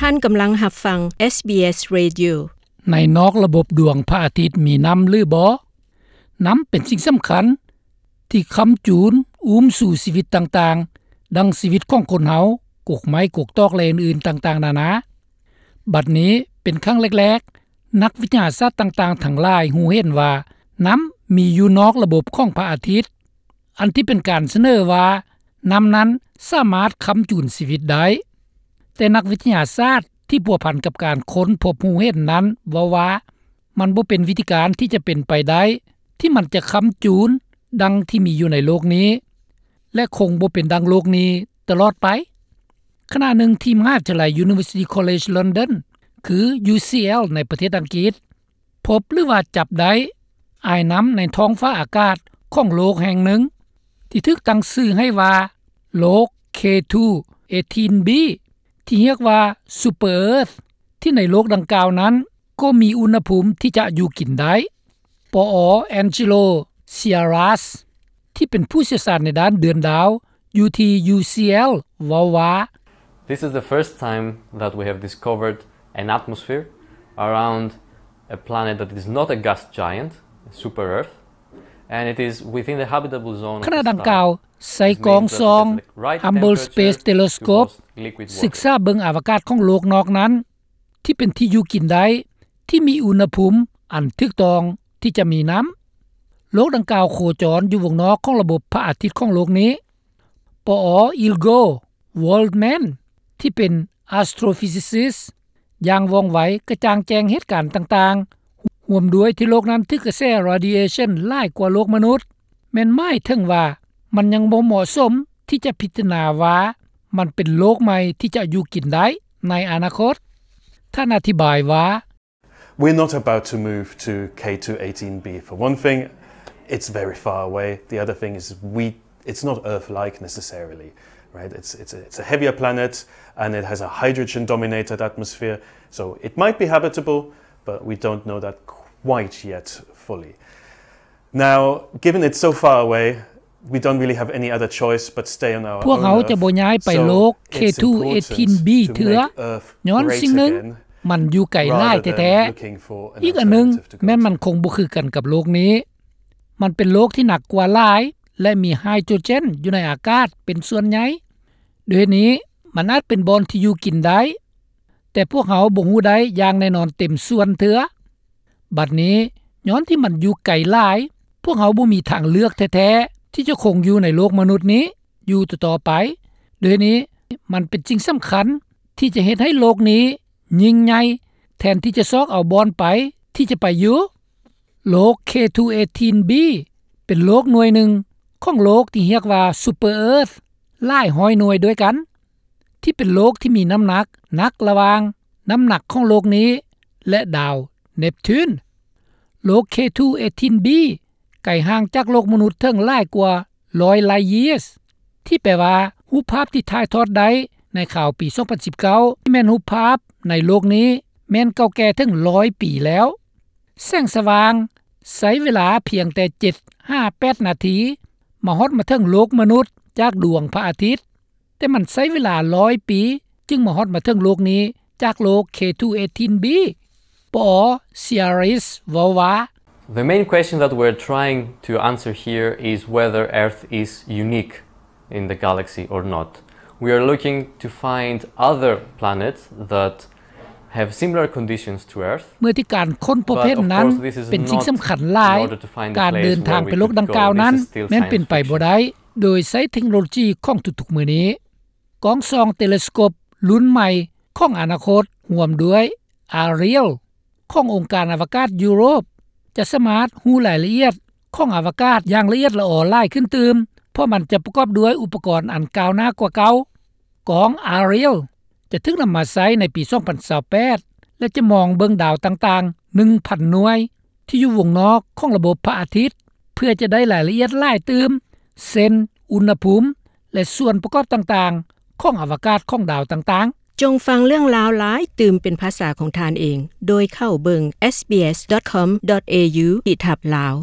ທ່ານກຳລັງຮັບຟັງ ເອສບີເອສ Radio. ໃນນອກລະບົບດວງພະອາທິດມີນ້ຳຫຼືບໍ່? ນ້ຳເປັນສິ່ງສຳຄັນທີ່ຄ້ຳຈູນອຸ້ມຊູຊີວິດຕ່າງໆ ດັ່ງຊີວິດຂອງຄົນເຮົາ, ກົກໄມ້, ກົກຕອກ ແລະ ອື່ນໆຕ່າງໆນານາ. ບັດນີ້ເປັນຄັ້ງແລກໆ ນັກວິທະຍາສາດຕ່າງໆທັງຫຼາຍຮູ້ເຫັນວ່ານ້ຳມີຢູ່ນອກລະບົບຂອງພະອາທິດ, ອັນທີ່ເປັນການສະເໜີວ່ານ້ຳນັ້ນສາມາດຄ້ຳຈູນຊີວິດໄດ້. ແຕ່ນັກວິທະຍາສາດທີ່ພົວພັນກັບການຄົ້ນພົບຮູ້ເຫັນນັ້ນເວົ້າວ່າ ມັນບໍ່ເປັນວິທີການທີ່ຈະເປັນໄປໄດ້ ທີ່ມັນຈະຄ້ຳຈູນດັ່ງທີ່ມີຢູ່ໃນໂລກນີ້ ແລະ ຄົງບໍ່ເປັນດັ່ງໂລກນີ້ຕະຫຼອດໄປ. ຂະນະໜຶ່ງທີ່ມະຫາວິທະຍາໄລ University College London ຄື UCL ໃນປະເທດອັງກິດ ພົບ ຫຼືວ່າຈັບໄດ້ອາຍນ້ຳໃນທ້ອງຟ້າອາກາດຂອງໂລກແຫ່ງໜຶ່ງ ທີ່ຖືກຕັ້ງຊື່ໃຫ້ວ່າໂລກ K two eighteen b ທີ່ຮຽກວ່າ Super Earth ທີ່ໃນໂລກດັ່ງກ່າວນັ້ນກໍມີອຸນຫະພູມທີ່ຈະຢູ່ກິນໄດ້. ປອ Angelo Ciaras ທີ່ເປັນຜູ້ຊ່ຽວຊານໃນດ້ານເດືອນດາວຢູ່ທີ່ UCL ເວົ້າວ່າ This is the first time that we have discovered an atmosphere around a planet that is not a gas giant, a super Earth, and it is within the habitable zone of the star. ຂະນະດັ່ງກ່າວ ໃຊ້ກ້ອງສ່ອງ Hubble Space Telescope ສຶກສາເບິ່ງອາວະກາດຂອງໂລກນອກນັ້ນ ທີ່ເປັນທີ່ຢູ່ກິນໄດ້ ທີ່ມີອຸນຫະພູມອັນຖືກຕ້ອງທີ່ຈະມີນ້ຳ. ໂລກດັ່ງກ່າວໂຄຈອນຢູ່ວົງນອກຂອງລະບົບພະອາທິດຂອງໂລກນີ້. ປອ Ilgo Waldman ທີ່ເປັນ astrophysicist ຢ່າງວ່ອງໄວກະຈ່າງແຈ້ງເຫດການຕ່າງໆ ຮ່ວມດ້ວຍທີ່ໂລກນັ້ນຖືກກະແສ radiation ຫຼາຍກວ່າໂລກມະນຸດ ແມ່ນໝາຍເຖິງວ່າມັນຍັງບໍ່ເໝາະສົມທີ່ຈະພິຈາລະນາວ່າມັນເປັນໂລກໃໝ່ທີ່ຈະຢູ່ກິນໄດ້ໃນອະນາຄົດ. ທ່ານອະທິບາຍວ່າ We're not about to move to K two eighteen b. For one thing, it's very far away. The other thing is we, it's not Earth-like necessarily, right? It's, it's a, it's a heavier planet, and it has a hydrogen-dominated atmosphere. So it might be habitable, but we don't know that quite yet fully. Now, given it's so far away, we don't really have any other choice but stay on our own Earth. ພວກເຮົາຈະບໍ່ຍ້າຍໄປໂລກ K two eighteen b ເທື່ອ ຍ້ອນສິ່ງໜຶ່ງ ມັນຢູ່ໄກຫຼາຍແທ້ໆ. ອີກອັນໜຶ່ງ ແມ່ນມັນຄົງບໍ່ຄືກັນກັບໂລກນີ້. ມັນເປັນໂລກທີ່ໜັກກວ່າຫຼາຍ ແລະ ມີໄຮໂດຣເຈນຢູ່ໃນອາກາດເປັນສ່ວນໃຫຍ່. ດ້ວຍເຫດນີ້ ມັນອາດເປັນບ່ອນທີ່ຢູ່ກິນໄດ້, ແຕ່ພວກເຮົາບໍ່ຮູ້ໄດ້ຢ່າງແນ່ນອນເຕັມສ່ວນເທື່ອ. ບັດນີ້ ຍ້ອນທີ່ມັນຢູ່ໄກຫຼາຍ, ພວກເຮົາບໍ່ມີທາງເລືອກແທ້ໆ ທີ່ຈະຄົງຢູ່ໃນໂລກມະນຸດນີ້ຢູ່ຕໍ່ໆໄປ. ດ້ວຍເຫດນີ້ ມັນເປັນສິ່ງສຳຄັນທີ່ຈະເຮັດໃຫ້ໂລກນີ້ຍິ່ງໃຫຍ່ ແທນທີ່ຈະຊອກເອົາບ່ອນໄປທີ່ຈະໄປຢູ່. ໂລກ K two eighteen b ເປັນໂລກໜ່ວຍໜຶ່ງຂອງໂລກທີ່ຮຽກວ່າ Super Earth ຫຼາຍຮ້ອຍໜ່ວຍດ້ວຍກັນ ທີ່ເປັນໂລກທີ່ມີນ້ຳໜັກໜັກລະຫວ່າງນ້ຳໜັກຂອງໂລກນີ້ ແລະ ດາວເນບທູນ. ໂລກ K two eighteen b ໄກຫ່າງຈາກໂລກມະນຸດເຖິງຫຼາຍກວ່າຮ້ອຍ light years ທີ່ແປວ່າ ຮູບພາບທີ່ຖ່າຍທອດໄດ້ໃນຂ່າວປີສອງພັນສິບເກົ້າ ທີ່ແມ່ນຮູບພາບໃນໂລກນີ້ ແມ່ນເກົ່າແກ່ເຖິງຮ້ອຍປີແລ້ວ. ແສງສະຫວ່າງໃຊ້ເວລາພຽງແຕ່ເຈັດຫາແປດນາທີ ມາຮອດມາເຖິງໂລກມະນຸດຈາກດວງພະອາທິດ, ແຕ່ມັນໃຊ້ເວລາຮ້ອຍປີຈຶ່ງມາຮອດມາເຖິງໂລກນີ້ຈາກໂລກ K two eighteen b. ປອ Ciaris ເວົ້າວ່າ The main question that we're trying to answer here is whether Earth is unique in the galaxy or not. We are looking to find other planets that have similar conditions to Earth. ເມື່ອທີ່ການຄົ້ນພົບເຫັນນັ້ນເປັນສິ່ງສຳຄັນຫຼາຍ, ການເດີນທາງໄປໂລກດັ່ງກ່າວນັ້ນແມ່ນເປັນໄປບໍ່ໄດ້ ໂດຍໃຊ້ເທັກໂນໂລຈີຂອງທຸກໆມື້ນີ້. ກ້ອງສ່ອງເຕເລສະໂກບລຸ້ນໃໝ່ຂອງອະນາຄົດ ຮ່ວມດ້ວຍ Ariel ຂອງອົງການອະວະກາດຢູໂຣບ ຈະສາມາດຮູ້ລາຍລະອຽດຂອງອະວະກາດຢ່າງລະອຽດລະອໍຫຼາຍຂຶ້ນຕື່ມ, ເພາະມັນຈະປະກອບດ້ວຍອຸປະກອນອັນກ້າວໜ້າກວ່າເກົ່າ. ກ້ອງ Ariel ຈະຖືກນຳມາໃຊ້ໃນປີສອງພັນຊາວແປດ ແລະ ຈະມອງເບິ່ງດາວຕ່າງໆ ໜຶ່ງພັນໜ່ວຍ ທີ່ຢູ່ວົງນອກຂອງລະບົບພະອາທິດ ເພື່ອຈະໄດ້ລາຍລະອຽດຫຼາຍຕື່ມ ເຊັ່ນ ອຸນຫະພູມ ແລະ ສ່ວນປະກອບຕ່າງໆຂອງອະວະກາດຂອງດາວຕ່າງໆ. ຈົ່ງຟັງເລື່ອງລາວຫຼາຍຕື່ມເປັນພາສາຂອງທ່ານເອງ ໂດຍເຂົ້າເບິ່ງ sbs.com.au/lao